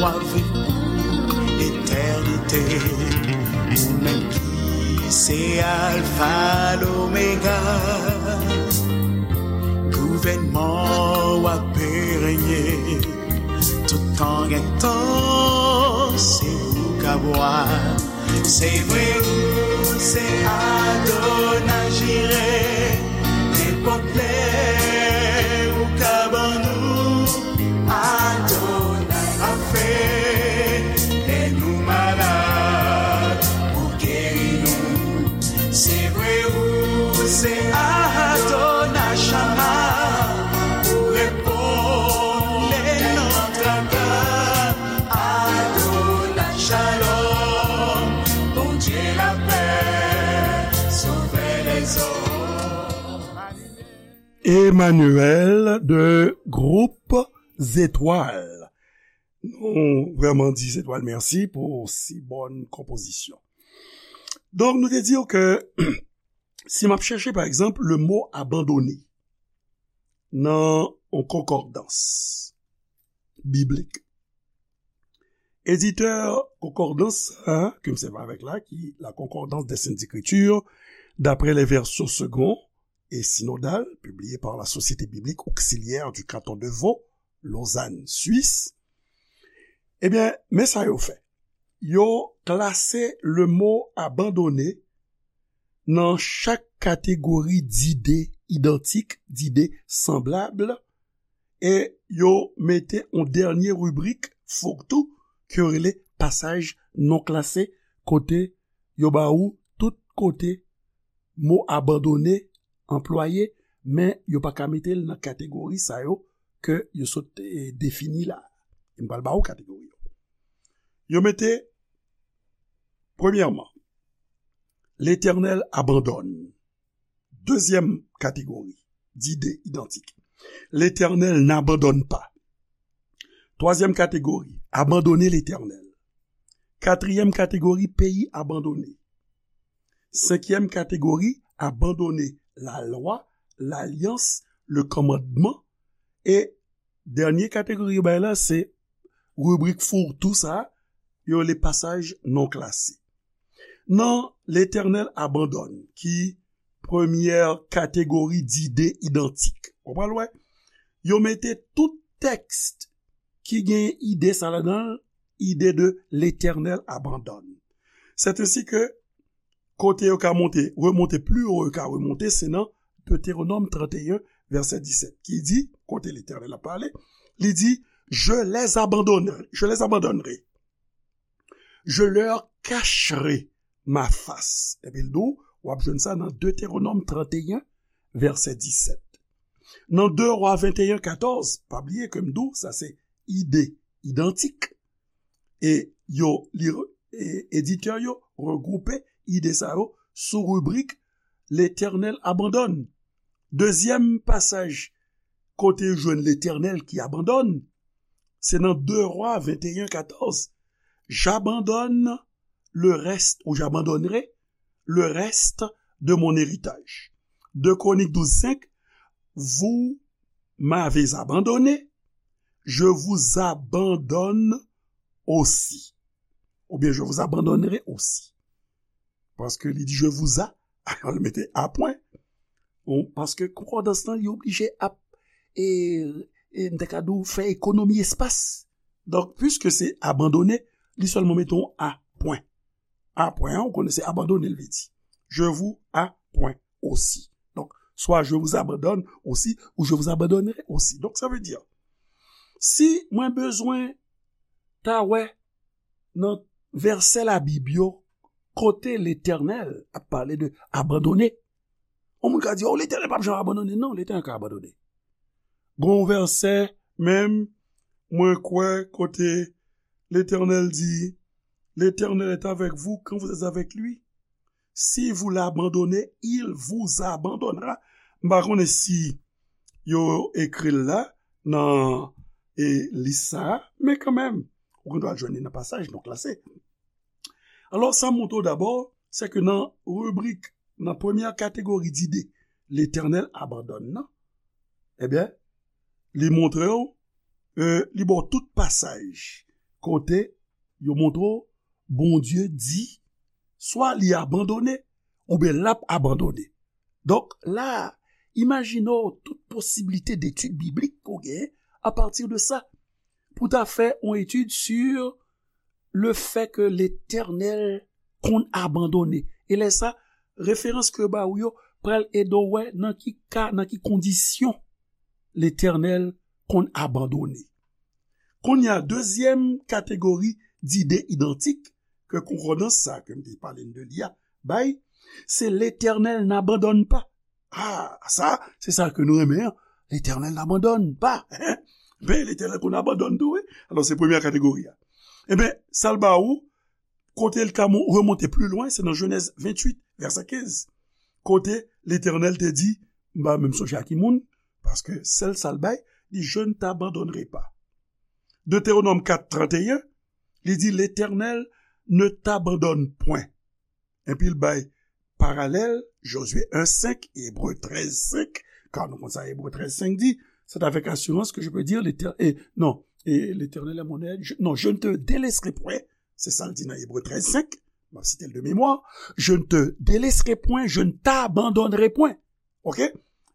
W ap viv pou letènite, ou menm ki se Alfa, Lomega. Gouvènman w ap renye, tout tan gen tan, se ou k ap wa. Se vre ou se Adonay Jire, nenpòt lè ou ka ban nou Adonay Rafe, lè nou malad, ou geri nou. Se vre ou se Adonay Shama, ou reponn lè nan traka. Adonai Shalom, Bondye lapè, Sovè lèzòm. Emmanuel de Groupe Zetwal. Nou vrèman di Zetwal mèsi pou si bòn konpozisyon. Donk, nou te di w ke si m ap chèche, pa egzanp, le mo abandone nan yon konkòdans biblik, editè konkòdans sa a ke m sèvi avèk la, ki La Concordance des Saintes Écritures d'après les versions secondes et synodales, publiée par la Société biblique auxiliaire du canton de Vaud, Lausanne, Suisse, ebyen, men sa yo fè. Yo klase le mo abandone nan chak kategori dide idantik, dide sanblab, e yo mete yon dènye ribrik, fourre-tout, ke yo rele pasaj non klase, kote yo ba ou tout kote mo abandone anplwaye, men yo pa ka mete l nan kategori sa yo ke yo sot, eh, defini la. M pral ba ou kategori yo. Yo mete, premyèman, Letènèl abandone. Dezyèm kategori, dide idantik, Letènèl n'abandonne pas. Twazyèm kategori, abandone Letènèl. Katriyèm kategori, peyi abandone. Senkyèm kategori, abandone lalwa, lalyans, le kòmandman. E dènye kategori yo bay la, se ribrik fourre-tout sa a, yo rele pasaj non klase. Nan Letènèl abandone, ki premyè kategori dide idantik. Ou pral wè, yo mete tout tèks ki gen ide sa ladan l, ide de Letènèl abandone. C'est ainsi que kote yo ka monte, remonte, pli wo yo ka remonte, se nan Deutéronome trente et un, verset dix-sept, ki di, kote Letènèl ap pale, li di, je les abandonnerai, je les abandonnerai. Je leur cacherai ma face. Epi l di w, w ap jwenn sa nan Deutéronome trente et un, verset dix-sept. Nan deux Rois vingt et un, quatorze, pa bliye ke m di w, sa se ide idantik. E yo, li, e, editè yo regwoupe ide sa yo sou ribrik Letènèl abandone. Dezyèm pasaj kote yo jwenn Letènèl ki abandone, se nan deux Rois vingt et un, quatorze. J'abandonne le reste, ou j'abandonnerai le reste de mon héritage. Deux Chroniques douze cinq, vous m'avez abandonné, je vous abandonne aussi. Oubyen, je vous abandonnerai aussi. Paske li di, je vous a, li mete a pwen. Bon, paske konkòdans lan, li oblije ap, e, e, m te ka di w, fè ekonomi espas. Donk, piske se abandone, li sèlman mete yon a pwen. A pwen an, ou konnen se abandone, l vle di. Je vous a pwen aussi. Donk, swa je vous abandonne aussi, ou je vous abandonnerai aussi. Donk, sa vle di, si mwen bezwen ta wè nan vèsè Labib yo, kote Letènèl ap pale de abandone. Yon moun ka di, oh, Letènèl p ap janm abandone. Non, Letènèl ka abandone. Gon vèsè, menm, mwen kwè, kote Letènèl di, L'Éternel est avec vous quand vous êtes avec lui. Si vous l'abandonnez, il vous abandonnera. M pa konnen si yo ekri l la nan, e, lis sa a, men kanmenm, ou gen dwa jwenn li nan pasaj nou klase. Alò, sa montre w dabò, se ke nan ribrik, nan premyè kategori dide, Letènèl abandone nan, ebyen, li montre w, e, li ba w tout pasaj kote yo montre w Bondye di, swa li abandone, oubyen l ap abandone. Donk, la a, imajine w tout posiblite detid biblik ke w genyen apati de sa. Pou ta fè yon etid sur le fait que Letènèl konn abandone. E lè sa, referans ke yo ba w yo pral ede w wè nan ki ka, nan ki kondisyon Letènèl konn abandone. Kounye a, dezyèm kategori dide idantik ke konkòdans sa ke m te pale n de li a bay, se Letènèl n'abandonne pas. Ah, sa, se sa ke nou renmen an. Letènèl n'abandonne pas. Ben, Letènèl konn abandone tou, wi. Alò, se premyè kategori a. Eben, sa l ba ou, kote l ka mo-, remonte pli lwen, se nan Jenèz venntuit, vèsè kenz. Kote Letènèl te di, m pa menm sonje a ki moun, paske sèl sa l bay, li, je ne t'abandonnerai pas. Deutéronome quatre, trente et un, li di, L'Éternel ne t'abandonne point. Epi l bay paralèl, Josué un cinq, Ebre trèz senk, ka nou konn sa Ebre trèz senk di, c'est avec assurance que je peux dire, l'Éternel, eh, non, eh, l'Éternel est mon aide, je, non, je ne te délaisserai point, se sa l di nan Ebre trèz senk, m ap site l de mémoire, je ne te délaisserai point, je ne t'abandonnerai point. Ok?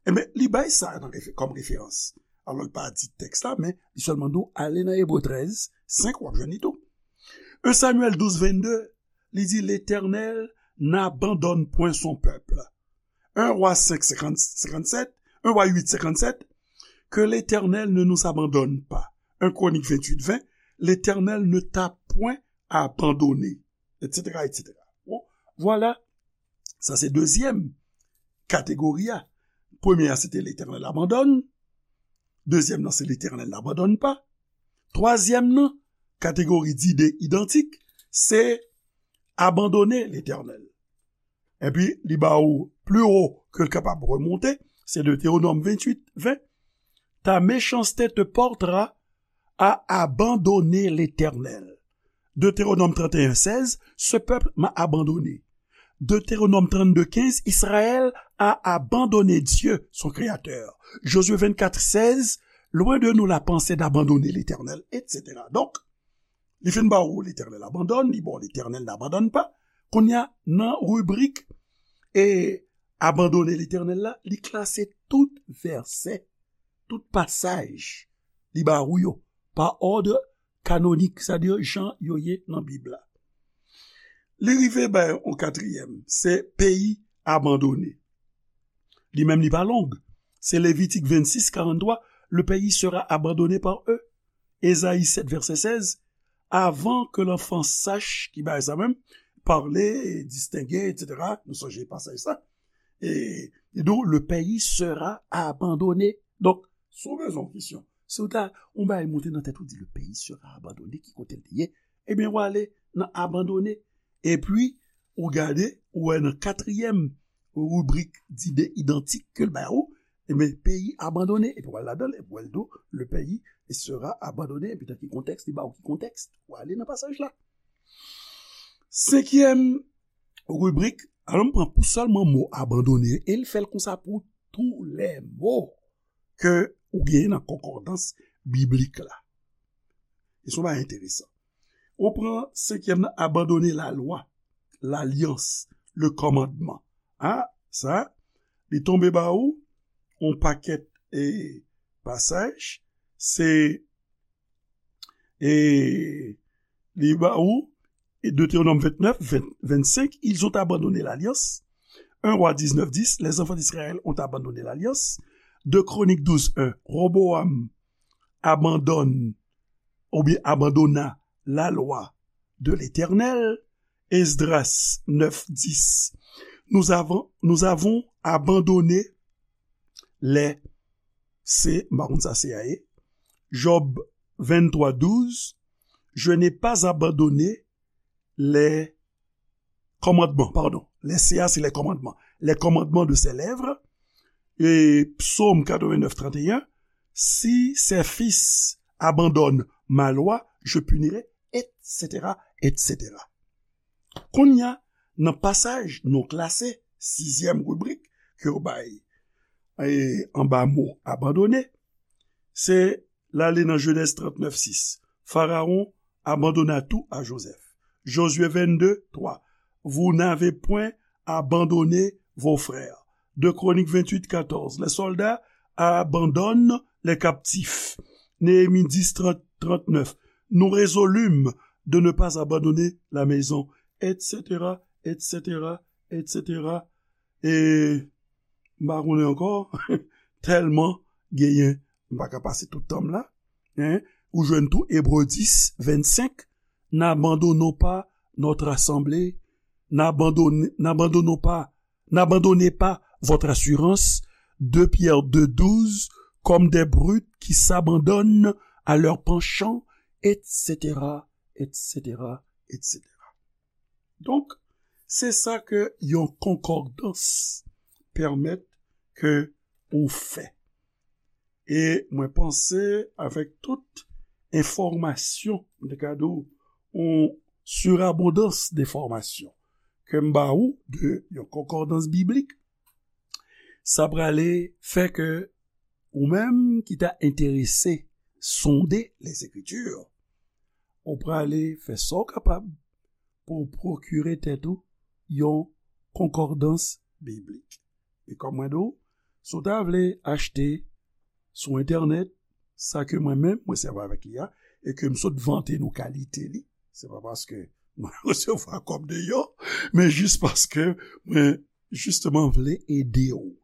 Ebyen, li bay sa nan refe-, kòm referans. Alò, li pa di tèks la, men li sèlman di w ale nan Ebre trèz senk, w ap jwenn li tou. Un Samuel douze vingt-deux, li di, L'Éternel n'abandonne point son peuple. Un Roi cinq, cinquante, cinquante-sept, un Roi huit, cinquante-sept, que l'Éternel ne nous abandonne pas. Un Chroniques vingt-huit vingt, L'Éternel ne t'a point abandonné, et cetera, et cetera. Bon, vwala. Sa se dezyèm kategori a. Premye a, se te Letènèl abandone. Dezyèm nan, se Letènèl n'abandonne pas. Twazyèm nan, kategori dide idantik, se abandone Letènèl. Epi, li ba ou pli wo ke l kapab remonte, se Deutéronome venntuit ven. Ta méchanceté te portera à abandonner l'Éternel. Deutéronome trente et un seize, ce peuple m'a abandonné. Deutéronome trente-deux quinze, Israël a abandonné Dieu, son Créateur. Josué vingt-quatre seize, loin de nous la pensée d'abandonner l'Éternel, et cetera. Donk, Li fin ba ou L'Éternel abandonne, li ba ou L'Éternel n'abandonne pas. Kounye a, nan ribrik e abandone Letènèl la, li klase tout vèsè, tout pasaj li ba ou yo pa òd kanonik, sètadi jan yo ye nan Bib la. Li rive bay yon katriyèm, se peyi abandone. Li menm li pa long. Se Levitik vennsis, karanntwa, le pays sera abandonné par eux. Ezayi sèt, vèsè sèz, avant que l'enfant sache, ki bagay sa menm, parler, distinguer, et cetera. Nou sonje pasaj sa. E, e donc, le pays sera abandonné. Donk, si w bezwen yon kesyon, si w ta, yon bagay monte nan tèt ou, di, le pays sera abandonné, ki kote l te ye, ebyen, w ale nan abandone. Epi, ou gade, ou wè nan katriyèm ribrik dide idantik ke l ba ou, ebyen, peyi abandone. Epi, w al ladan l, epi, w al di w, le pays sera abandonné. Epi, nan ki kontèks, li ba ou ki kontèks, ou ale nan pasaj la. Senkyèm ribrik, alò, m pran pou sèlman mo abandone, e l fè l konsa pou tou lè mo ke ou genyen nan konkòdans biblik la. E se yon bagay enteresan. Ou pran senkyèm nan, abandone lalwa, lalyans, le kòmandman. A, sa, li tonbe ba ou yon pakèt e pasaj, se, e, li ba ou, e Deutéronome vingt-neuf, vingt, vingt-cinq, ils ont abandonné l'alliance. Un Roi dix-neuf dix, les enfants d'Israël ont abandonné l'alliance. Deux Chroniques douze un, Roboam abandonne, oubyen abandonna la loi de l'Éternel. Esdras neuf dix, nous avons, nous avons abandonné les, se, m pa konn sa se a ye. Job vingt-trois douze, je n'ai pas abandonné les commandements, pardon. Les C A, c'est les commandements. Les commandements de ses lèvres. Et Psaume quatre-vingt-neuf trente et un, si ses fils abandonnent ma loi, je punirai, et cetera, et cetera. Kounye a, nan pasaj nou klase, sizyèm ribrik ke yo bay, e, anba mo abandone, se l ale nan Jenèz trannèf sis. Pharaon abandonna tout à Joseph. Josué vingt-deux trois, vous n'avez point abandonné vos frères. Deux Chroniques vingt-huit quatorze, les soldats abandonnent les captifs. Néhémie dix trente, trente-neuf, nous résolûmes de ne pas abandonner la maison, et cetera, et cetera, et cetera. E m pa konnen ankò, tèlman genyen, m pa ka pase tout tan m la. Hein? Ou jwenn tou Ebre dis, vennsenk, n'abandonnons pas notre assemblée, n'abandonne-, n'abandonnons pas, n'abandonnez pas votre assurance, deux Pierre deux douze, comme des brutes qui s'abandonnent à leurs penchants, et cetera, et cetera, et cetera. Donk, se sa ke yon konkòdans pèmèt ke ou fè. E mwen panse avèk tout enfòmasyon, m te ka di w, yon surabondans de enfòmasyon ke m ba ou de yon konkòdans biblik, sa prale fè ke ou menm ki ta enterese sonde les Écritures, ou prale fè sa w kapab pou w pwokire tèt ou yon konkòdans biblik. E kòm mwen di w, si w ta vle achte sou entènèt sa ke mwen menm mwen sèvi avèk li a, e ke m sot vante nou kalite li, se pa paske mwen resevwa kòb deyò, men jis paske mwen jisteman vle ede w.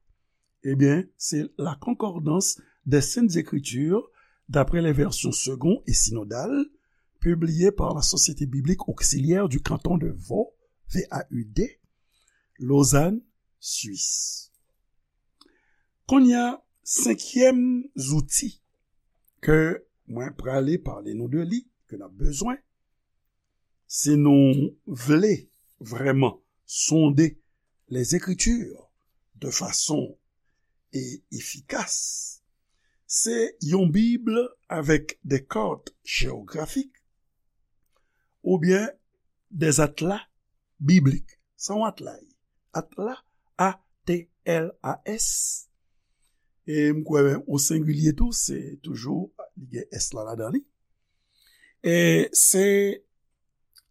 Ebyen, se La Concordance des Saintes Écritures d'après les versions Segond et Synodale, publiée par la Société Biblique Auxiliaire du Canton de Vaud, V A U D, Lausanne, Suisse. Kounye a, senkyèm zouti ke mwen prale pale nou de li, ke n ap bezwen, si nou vle vrèman sonde les Écritures de façon e efikas, se yon Bib avèk des cartes géographiques oubyen des atlas bibliques. Sa yon atla ye. Atla, A T L A S. E m kwè o sengilye tou, se toujou, li gen S la ladan li. E se,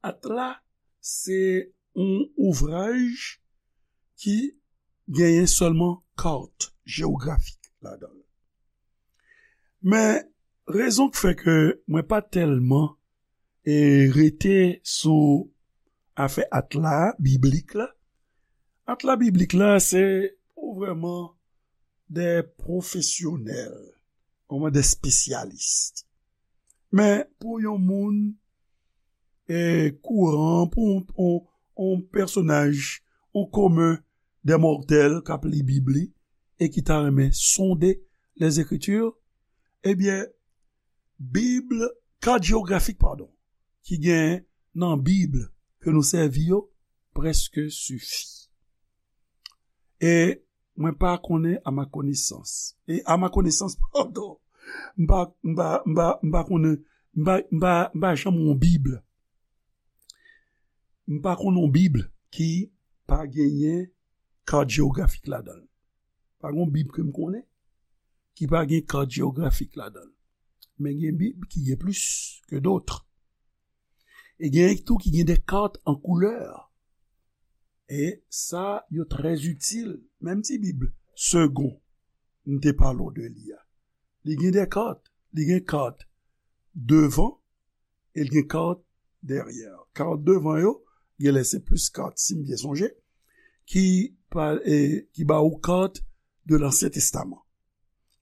Atla, se yon ouvraj ki genyen sèlman kat jewografik ladan l. Men, rezon k fè ke mwen pa tèlman e rete sou afè Atla biblik la. Atla biblik la, se pou vrèman de pwofesyonèl, vrèman de espesyalis. Men pou yon moun e kouran, pou yon, yon, yon pèsonaj, yon komen de mòtèl k ap li Bib li e ki ta renmen sonde Lèzekriti, ebyen, Bib, kat jewografik, padon, ki gen nan Bib ke nou sèvi yo, prèske sifi. E mwen pa konnen, à ma connaissance. E à ma connaissance, padon, m pa, m pa, m pa, m pa konnen, m pa, m pa, m pa janm wè yon Bib. M pa konnen yon Bib ki pa genyen kat jewografik ladan l. Pa gen yon Bib ke m konnen ki pa gen kat jewografik ladan l. Men gen Bib ki gen plis ke dòt. E gen tou ki gen de kat an koulè. E sa yo trè itil. Menm ti Bib segon m te pale w de li a. Li gen de kat. Li gen kat devan e l gen kat dèyè. Kat devan yo, genlè se plis kat, si m byen sonje, ki pa, e, ki ba ou kat de Lansyen Testaman.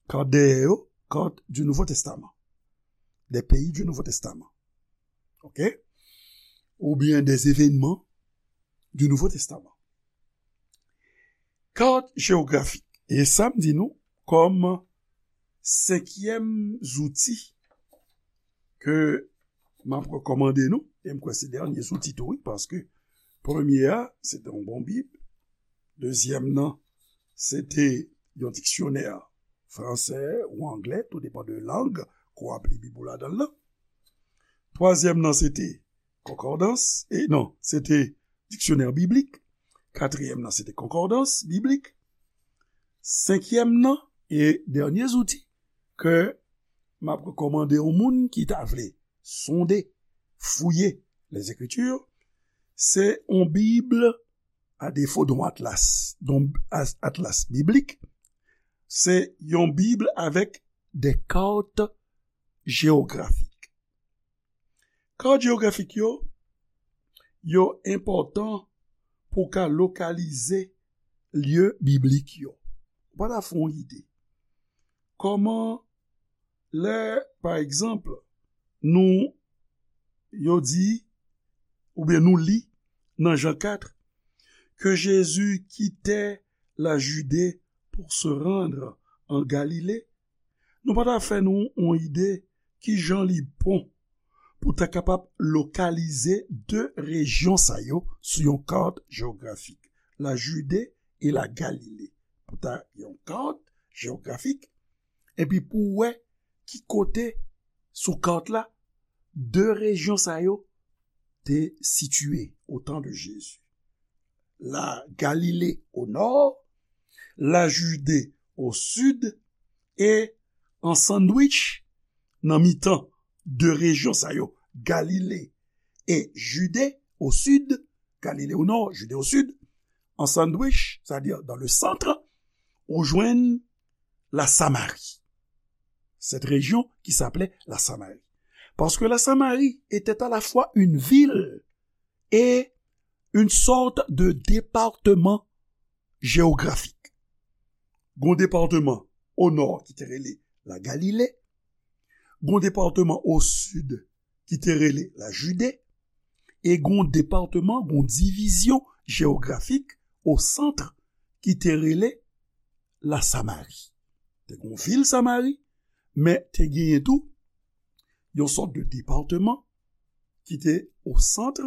Kat dèyè yo, kat du Nouveau Testament. Des pays du Nouveau Testament. OK? Oubyen des événements du Nouveau Testament. Kat jewografik. E sa m di nou kòm senkyèm zouti ke m ap rekòmande nou, e m kwè se dènye zouti tou, wi, paske premye a, se te yon bon Bib, dezyèm nan, se te yon diksyonè fransè ou anglè, tou depann de lang ke w ap li Bib ou ladan l lan. Twazyèm nan, se te konkòdans, e non, se te diksyonè biblik. Katriyèm nan, se te konkòdans biblik. Senkyèm nan, e dènye zouti ke m ap rekòmande yon moun ki ta vle sonde, fouye Lèzekriti, se yon Bib, a defo de yon atlas, de yon as-, atlas biblik, se yon Bib avèk de kat jewografik. Kat jewografik yo, yo enpòtan pou w ka lokalize lye biblik yo. Ou pa ta fè yon ide. Kòman lè, pa egzanp, nou, yo di, oubyen nou li nan Jan kat, que Jésus quittait la Judée pour se rendre en Galilée, nou pa ta fè nou yon ide kijan li bon pou ta kapab lokalize de rejyon sa yo sou yon kat jewografik, la Jide e la Galile. Pou ta yon kat jewografik, epi pou wè ki kote sou kat la de rejyon sa yo te sitiye au temps de Jésus. La Galilée au nord, la Judée au sud, e an sandwich nan mitan de rejyon sa yo, Galile e Jide au sud, Galile au nord, Jide au sud, an sandwich, c'est-à-dire dans le centre, ou jwenn la Samari. Cette région qui s'appelait la Samarie. Parce que la Samarie était à la fois une ville et une sorte de département géographique. Gon depatman o nò ki te rele la Galile, gon depatman o sid ki te rele la Jide, e gon depatman, gon divizyon jewografik o sant ki te rele la Samari. Te gon vil Samari, men te genyen tou yon sòt de depatman ki te o sant,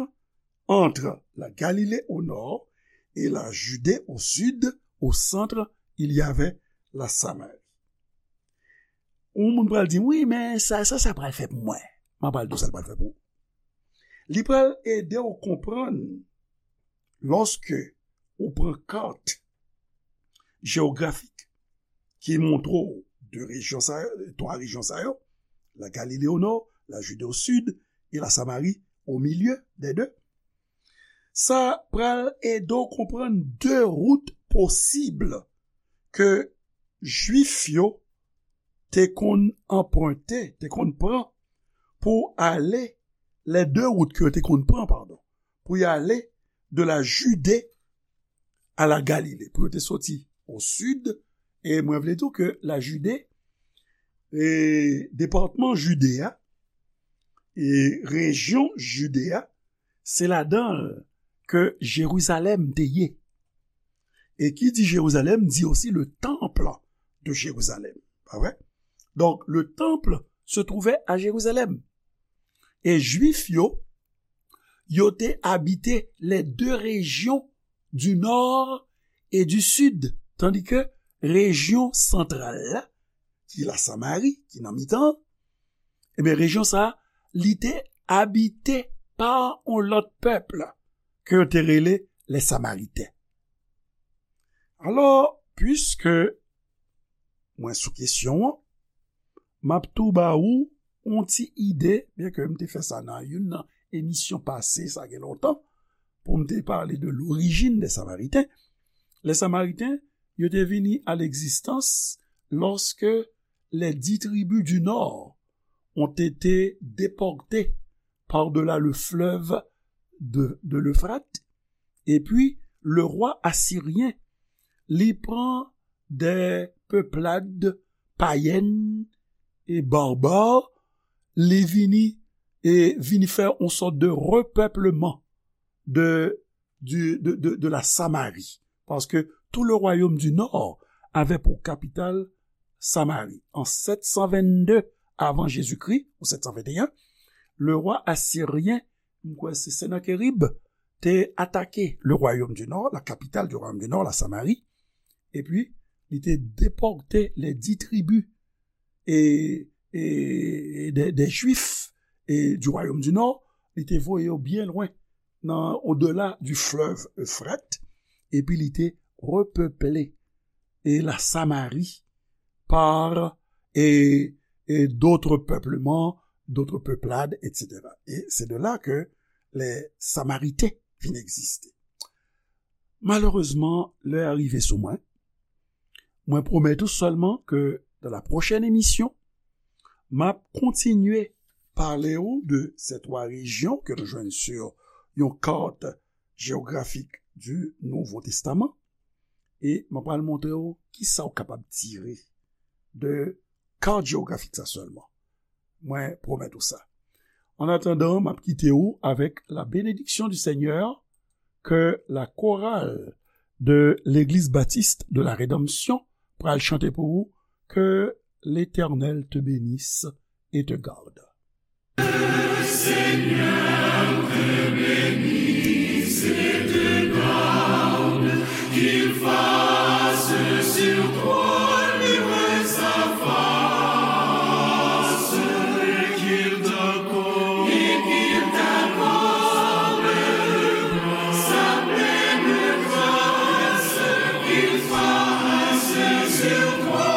entre la Galilée au nord et la Judée au sud. Au centre, il y avait la Samarie. Yon moun pral di m, "Wi, men sa, sa, sa pral fè pou mwen." M ap pral di w sa l pral fè pou ou. Li pral ede w konprann lòske ou pran kat jewografik ki montre w de rejyon sa yo, twa rejyon sa yo, la Galile o nò, la Jide o sid, et la Samarie au milieu des deux. Sa pral ede w konprann de wout posib ke Jwif yo te konn anprente, te konn pran pou ale, les deux routes ke yo te konn pran, padon, pou y ale de la Judée à la Galilée, pou yo te soti o sid, e mwen vle di w ke la Jide, e depatman Jide a, e rejyon Jide a, se ladan l ke Jerizalèm te ye. E ki di Jerizalèm, di osi le temple de Jérusalem. Pa vre? Donk, le temple se trouvait à Jérusalem. E Jwif yo, yo te abite les deux régions du nord et du sud, tandis que rejyon santral la, ki la Samari, ki nan mitan, ebyen, rejyon sa a, li te abite pa yon lòt pèp ke yo te rele les Samaritains. Alò, piske mwen sou kesyon an, m ap tou ba ou yon ti ide, byenke m te fè sa nan youn nan emisyon pase, sa gen lontan, pou m te pale de l'origine des Samaritains. Les Samaritains, yo te vini à l'existence lorsque les dix tribus du nord ont été déportées par-delà le fleuve de, de l'Euphrate. Epi, le rwa asiryen, li pran de peplad payèn e barbar, li vini, e vini fè yon sòt de repèpleman de, du, de, de, de la Samarie. Parce que tout le royaume du nord avait pour capitale Samarie. En sept cent vingt-deux avant Jésus-Christ, ou sept cent vingt et un, le roi assyrien, m kwè se Sennacherib, te atake le royaume du nord, la capitale du royaume du nord, la Samarie, epi li te depòte les dix tribus e, e, e des, des Juifs e du royaume du nord, li te voye yo byen lwen, nan, au-delà du fleuve Euphrate, epi li te repeple e la Samari par e, e d'autres peuplements, d'autres peuplades, et cetera. E se de la ke les Samaritains vin egziste. Malerezman, lè a rive sou mwen. Mwen pwomèt ou sèlman ke dans la prochaine émission, m ap kontinye pale ou de ces trois régions ke nou jwenn sur yon kat jewografik du Nouveau Testament. E mwen pral montre w kisa w kapab tire de kat jewografik sa sèlman. Mwen pwomèt ou sa. An atandan, m ap kite ou avèk la bénédiction du Seigneur ke la chorale de l'Église Baptiste de la Rédemption pral chante pou ou. Que l'Éternel te bénisse et te garde. Seigneur te bénisse et te garde, qu'il fasse sur toi luire sa face, et qu'il t'accorde, et qu'il t'accorde sa pleine grâce, qu'il fasse sur toi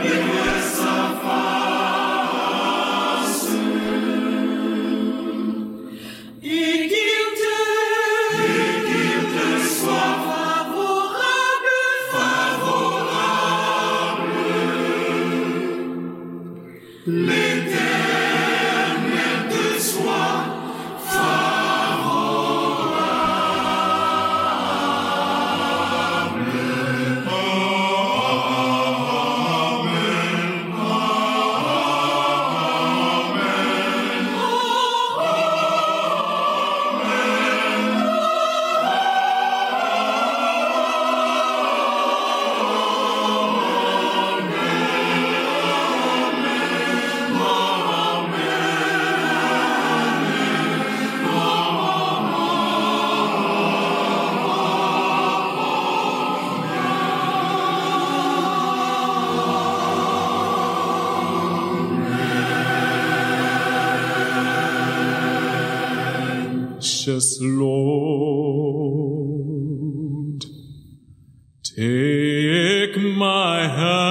luire sa face. Et qu'il te, et qu'il te soit favorable, favorable. L'Éternel te soit favorable. Precious Lord, take my hand.